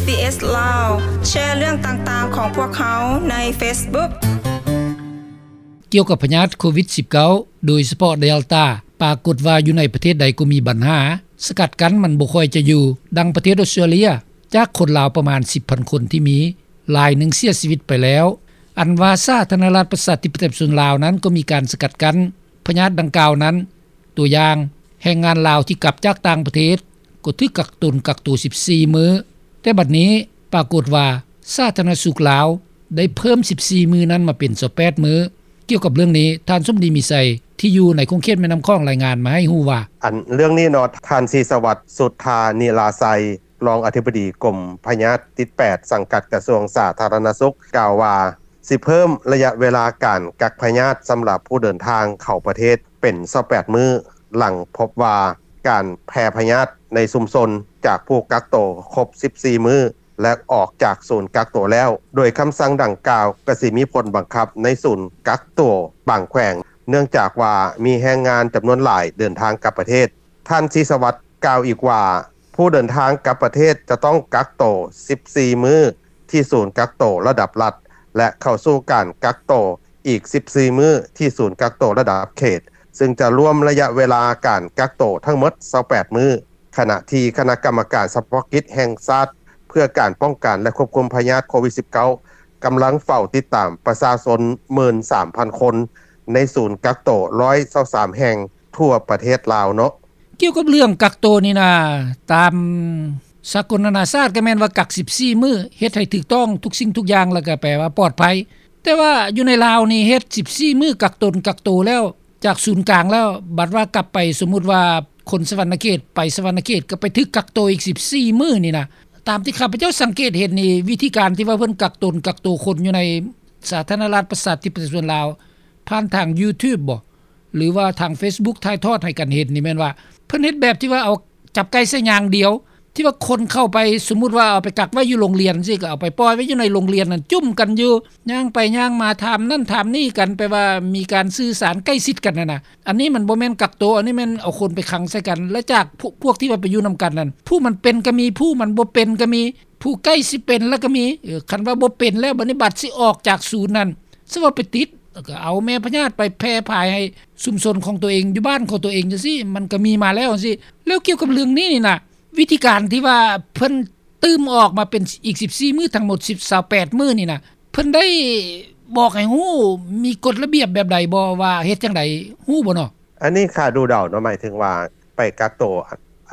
ບີເອສ ລາວ ແຊເລື່ອງຕ່າງໆຂອງພວກເຮົາໃນເຟສບຸກ. ກ່ຽວກັບພະຍາດໂຄວິດສິບເກົ້າ ໂດຍສະເພາະເດລຕາ ປາກົດວ່າຢູ່ໃນປະເທດໃດກໍມີບັນຫາ ສະກັດກັ້ນມັນບໍ່ຄ່ອຍຈະຢູ່. ດັ່ງປະເທດອົດສະຕຣາເລຍ ຈາກຄົນລາວປະມານສິບພັນຄົນທີ່ມີ ຫຼາຍໜຶ່ງເສຍຊີວິດໄປແລ້ວ. ອັນວ່າສາທາລະນະລັດປະຊາທິປະໄຕປະຊາຊົນລາວນັ້ນກໍມີການສະກັດກັ້ນພະຍາດດັ່ງກ່າວນັ້ນ. ຕົວຢ່າງ, ແຮງງານລາວທີ່ກັບຈາກຕ່າງປະເທດກໍຖືກກັກຕົນກັກໂຕສິບສີ່ມື້, ແຕ່ບັດນີ້ປາກົດວ່າສາທາລະນະສຸກລາວໄດ້ເພີ່ມສິບສີ່ມື້ນັ້ນມາເປັນຊາວແປດມື້. ກ່ຽວກັບເລື່ອງນີ້, ທ່ານສົມດີ ມີໄຊ ທີ່ຢູ່ໃນຂົງເຂດແມ່ນ້ຳຂອງ ລາຍງານມາໃຫ້ຮູ້ວ່າ. ອັນເລື່ອງນີ້ເນາະ, ທ່ານ ສີສະຫວັດ ສຸດທານິລາໄຊ ຮອງອະທິບໍດີກົມພະຍາດຕິດແປດ ສັງກັດກະຊວງສາທາລະນະສຸກ ກ່າວວ່າ ຊິເພີ່ມໄລຍະເວລາການກັກພະຍາດສຳລັບຜູ້ເດີນທາງເຂົ້າປະເທດເປັນຊາວແປດມື້ ຫຼັງພົບວ່າການແຜ່ພະຍາດໃນຊຸມຊົນຈາກຜູ້ກັກໂຕຄົບສິບສີ່ມື້ ແລະ ອອກຈາກສູນກັກໂຕແລ້ວ, ໂດຍຄຳສັ່ງດັ່ງກ່າວກໍຊິມີຜົນບັງຄັບໃນສູນກັກໂຕບາງແຂວງ, ເນື່ອງຈາກວ່າມີແຮງງານຈຳນວນຫຼາຍເດີນທາງກັບປະເທດ. ທ່ານ ສີສະຫວັດ ກ່າວອີກວ່າ ຜູ້ເດີນທາງກັບປະເທດຈະຕ້ອງກັກໂຕສິບສີ່ມື້ທີ່ສູນກັກໂຕລະດັບລັດ ແລະ ເຂົ້າສູ່ການກັກໂຕອີກສິບສີ່ມື້ທີ່ສູນກັກໂຕລະດັບເຂດ, ຊຶ່ງຈະລວມໄລຍະເວລາການກັກໂຕທັງໝົດຊາວແປດມື້, ຂະນະທີ່ຄະນະກຳມະການສະເພາະກິດແຫ່ງຊາດເພື່ອການປ້ອງກັນ ແລະ ຄວບຄຸມພະຍາດໂຄວິດສິບເກົ້າ ກຳລັງເຝົ້າຕິດຕາມປະຊາຊົນໝື່ນສາມພັນຄົນໃນສູນກັກໂຕຮ້ອຍຊາວສາມແຫ່ງທົ່ວປະເທດລາວເນາະ. ກ່ຽວກັບເລື່ອງກັກໂຕນີ້ນະ, ຕາມສາກົນນານາຊາດກໍແມ່ນວ່າກັກສິບສີ່ມື້ ເຮັດໃຫ້ຖືກຕ້ອງທຸກສິ່ງທຸກຢ່າງ ແລ້ວກໍແປວ່າປອດໄພ. ແຕ່ວ່າຢູ່ໃນລາວນີ້ເຮັດສິບສີ່ມື້ກັກຕົນກັກໂຕແລ້ວ ຈາກສູນກາງແລ້ວ, ບັດວ່າກັບໄປ, ສົມມຸດວ່າຄົນສະຫວັນນະເຂດ ໄປສະຫວັນນະເຂດ ກໍໄປຖືກກັກໂຕອີກສິບສີ່ມື້ນີ້ນະ. ຕາມທີ່ຂ້າພະເຈົ້າສັງເກດເຫັນນີ້, ວິທີການທີ່ວ່າເພິ່ນກັກຕົນກັກໂຕຄົນຢູ່ໃນສາທາລະນະລັດປະຊາທິປະໄຕປະຊາຊົນລາວ ຜ່ານທາງຢູທູບບໍ ຫຼືວ່າທາງເຟສບຸກຖ່າຍທອດໃຫ້ກັນເຫັນນີ້ແມ່ນວ່າ ເພິ່ນເຮັດແບບທີ່ວ່າເອົາຈັບໄກ່ໃສ່ຍາງດຽວ ທີ່ວ່າຄົນເຂົ້າໄປ, ສົມມຸດວ່າເອົາໄປກັກໄວ້ຢູ່ໂຮງຮຽນຊີ້, ກໍເອົາໄປປ່ອຍໄວ້ຢູ່ໃນໂຮງຮຽນນັ້ນ, ຈຸ້ມກັນຢູ່, ຍ່າງໄປຍ່າງມາ, ຖາມນັ້ນຖາມນີ້ກັນ, ແປວ່າມີການສື່ສານໃກ້ຊິດກັນຫັ້ນນະ. ອັນນີ້ມັນບໍ່ແມ່ນກັກໂຕ, ອັນນີ້ແມ່ນເອົາຄົນໄປຂັງໃສ່ກັນ. ແລະ ຈາກພວກ ພວກທີ່ວ່າໄປຢູ່ນຳກັນນັ້ນ, ຜູ້ມັນເປັນກໍມີ, ຜູ້ມັນບໍ່ເປັນກໍມີ, ຜູ້ໃກ້ຊິເປັນແລ້ວກໍມີ. ເອີ ຄັນວ່າບໍ່ເປັນແລ້ວ, ບັດນີ້ບັດຊິອອກຈາກສູນນັ້ນ, ສະວ່າໄປຕິດ ແລ້ວກໍເອົາແມ່ພະຍາດໄປແຜ່ພາຍໃຫ້ຊຸມຊົນຂອງຕົວເອງ ຢູ່ບ້ານຂອງຕົວເອງຈັ່ງຊີ້ ມັນກໍມີມາແລ້ວຈັ່ງຊີ້. ແລ້ວກ່ຽວກັບເລື່ອງນີ້ນີ້ນະ, ວິທີການທີ່ວ່າເພິ່ນຕື່ມອອກມາເປັນອີກສິບສີ່ມື້ ທັງໝົດສິບ ຊາວແປດມື້ນີ້ນະ, ເພິ່ນໄດ້ບອກໃຫ້ຮູ້ ມີກົດລະບຽບແບບໃດບໍ່ ວ່າເຮັດຈັ່ງໃດ ຮູ້ບໍ່ເນາະ? ອັນນີ້ຂ້າດູເດົາເນາະ, ໝາຍເຖິງວ່າໄປກັກໂຕ ອ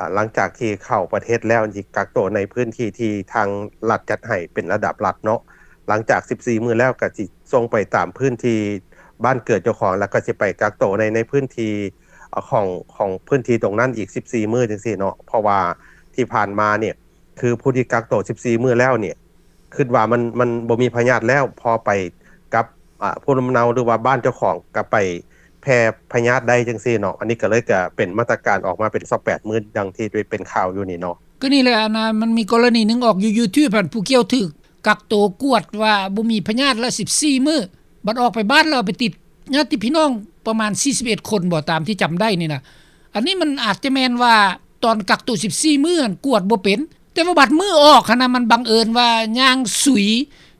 າ ຫຼັງຈາກທີ່ເຂົ້າປະເທດແລ້ວ ຊິກັກໂຕໃນພື້ນທີ່ທີ່ທາງລັດຈັດໃຫ້ເປັນລະດັບລັດເນາະ. ຫຼັງຈາກສິບສີ່ມື້ແລ້ວ ກໍຊິສົ່ງໄປຕາມພື້ນທີ່ບ້ານເກີດເຈົ້າຂອງ ແລ້ວກໍຊິໄປກັກໂຕໃນ ໃນພື້ນທີ່ ອາ ຂອງ ຂອງພື້ນທີ່ຕົງນັ້ນອີກສິບສີ່ມື້ຈັ່ງຊີ້ເນາະ. ເພາະວ່າທີ່ຜ່ານມານີ້ ຄືຜູ້ທີ່ກັກໂຕສິບສີ່ມື້ແລ້ວນີ້ ຄິດວ່າມັນ ມັນບໍ່ມີພະຍາດແລ້ວ, ພໍໄປກັບ ອາ ພູມລຳເນົາ ຫຼືວ່າບ້ານເຈົ້າຂອງ ກໍໄປແຜ່ພະຍາດໄດ້ຈັ່ງຊີ້ເນາະ. ອັນນີ້ກໍເລີຍ ກໍເປັນມາດຕະການອອກມາເປັນຊາວແປດມື້ ດັ່ງທີ່ໄດ້ເປັນຂ່າວຢູ່ນີ້ເນາະ. ກໍນີ້ແຫຼະ ອັນນ່າ ມັນມີກໍລະນີໜຶ່ງອອກຢູ່ຢູທູບຫັ້ນ ຜູ້ກ່ຽວຖືກກັກໂຕກວດວ່າບໍ່ມີພະຍາດລະສິບສີ່ມື້, ບັດອອກໄປບ້ານແລ້ວໄປຕິດຍາດຕິພີ່ນ້ອງປະມານສີ່ສິບເອັດຄົນບໍ ຕາມທີ່ຈຳໄດ້ນີ້ນະ. ອັນນີ້ມັນອາດຈະແມ່ນວ່າຕອນກັກໂຕສິບສີ່ມື້ຫັ້ນກວດບໍ່ເປັນ, ແຕ່ວ່າບັດມື້ອອກຫັ້ນນະ ມັນບັງເອີນວ່າຍ່າງສຸຍ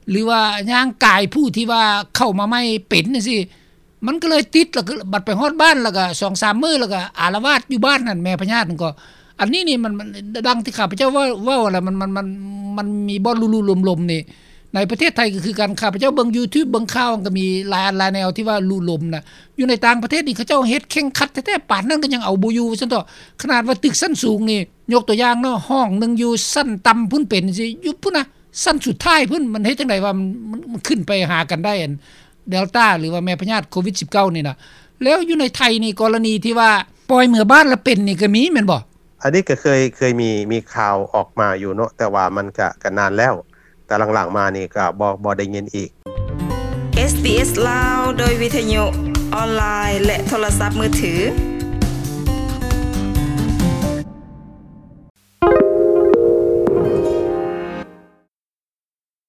ຫຼືວ່າຍ່າງກາຍຜູ້ທີ່ວ່າເຂົ້າມາໃໝ່ເປັນຈັ່ງຊີ້ ມັນກໍເລີຍຕິດ. ແລ້ວກໍບັດໄປຮອດບ້ານ ແລ້ວກໍສອງສາມມື້ ແລ້ວກໍອາລະວາດຢູ່ບ້ານຫັ້ນ ແມ່ພະຍາດນັ້ນກໍ. ອັນນີ້ນີ້ມັນ ມັນ ດັ່ງທີ່ຂ້າພະເຈົ້າເວົ້າ ເວົ້າຫັ້ນລະ ມັນ ມັນ ມັນ ມັນມີບ່ອນລຸໆລົມໆນີ້. ໃນປະເທດໄທກໍຄືກັນ, ຂ້າພະເຈົ້າເບິ່ງຢູທູບ ເບິ່ງຂ່າວ ມັນກໍມີຫຼາຍອັນຫຼາຍແນວທີ່ວ່າລຸລົມນະ. ຢູ່ໃນຕ່າງປະເທດນີ້ ເຂົາເຈົ້າເຮັດເຄັ່ງຄັດແທ້ໆ ປານນັ້ນກໍຍັງເອົາບໍ່ຢູ່ ວ່າຊັ້ນເຖາະ. ຂະໜາດວ່າຕຶກຊັ້ນສູງນີ້ ຍົກຕົວຢ່າງເນາະ, ຫ້ອງໜຶ່ງຢູ່ຊັ້ນຕ່ຳພຸ້ນເປັນຈັ່ງຊີ້ ຢູ່ພຸ້ນນະ ຊັ້ນສຸດທ້າຍພຸ້ນ, ມັນເຮັດຈັ່ງໃດວ່າມັນ ມັນ ມັນຂຶ້ນໄປຫາກັນໄດ້ ອັນເດລຕາ ຫຼືວ່າແມ່ພະຍາດໂຄວິດສິບເກົ້ານີ້ນະ. ແລ້ວຢູ່ໃນໄທນີ້ ກໍລະນີທີ່ວ່າປ່ອຍເມືອບ້ານລະເປັນນີ້ກໍມີແມ່ນບໍ່? ອັນນີ້ກໍເຄີຍ ເຄີຍມີ ມີຂ່າວອອກມາຢູ່ເນາະ, ແຕ່ວ່າມັນກະ ກະນານແລ້ວ, ແຕ່ຫຼັງໆມານີ້ກະບໍ່ ບໍ່ໄດ້ຍິນອີກ. ເອສບີເອສ ລາວ ໂດຍວິທະຍຸ ອອນລາຍ ແລະ ໂທລະສັບມືຖື.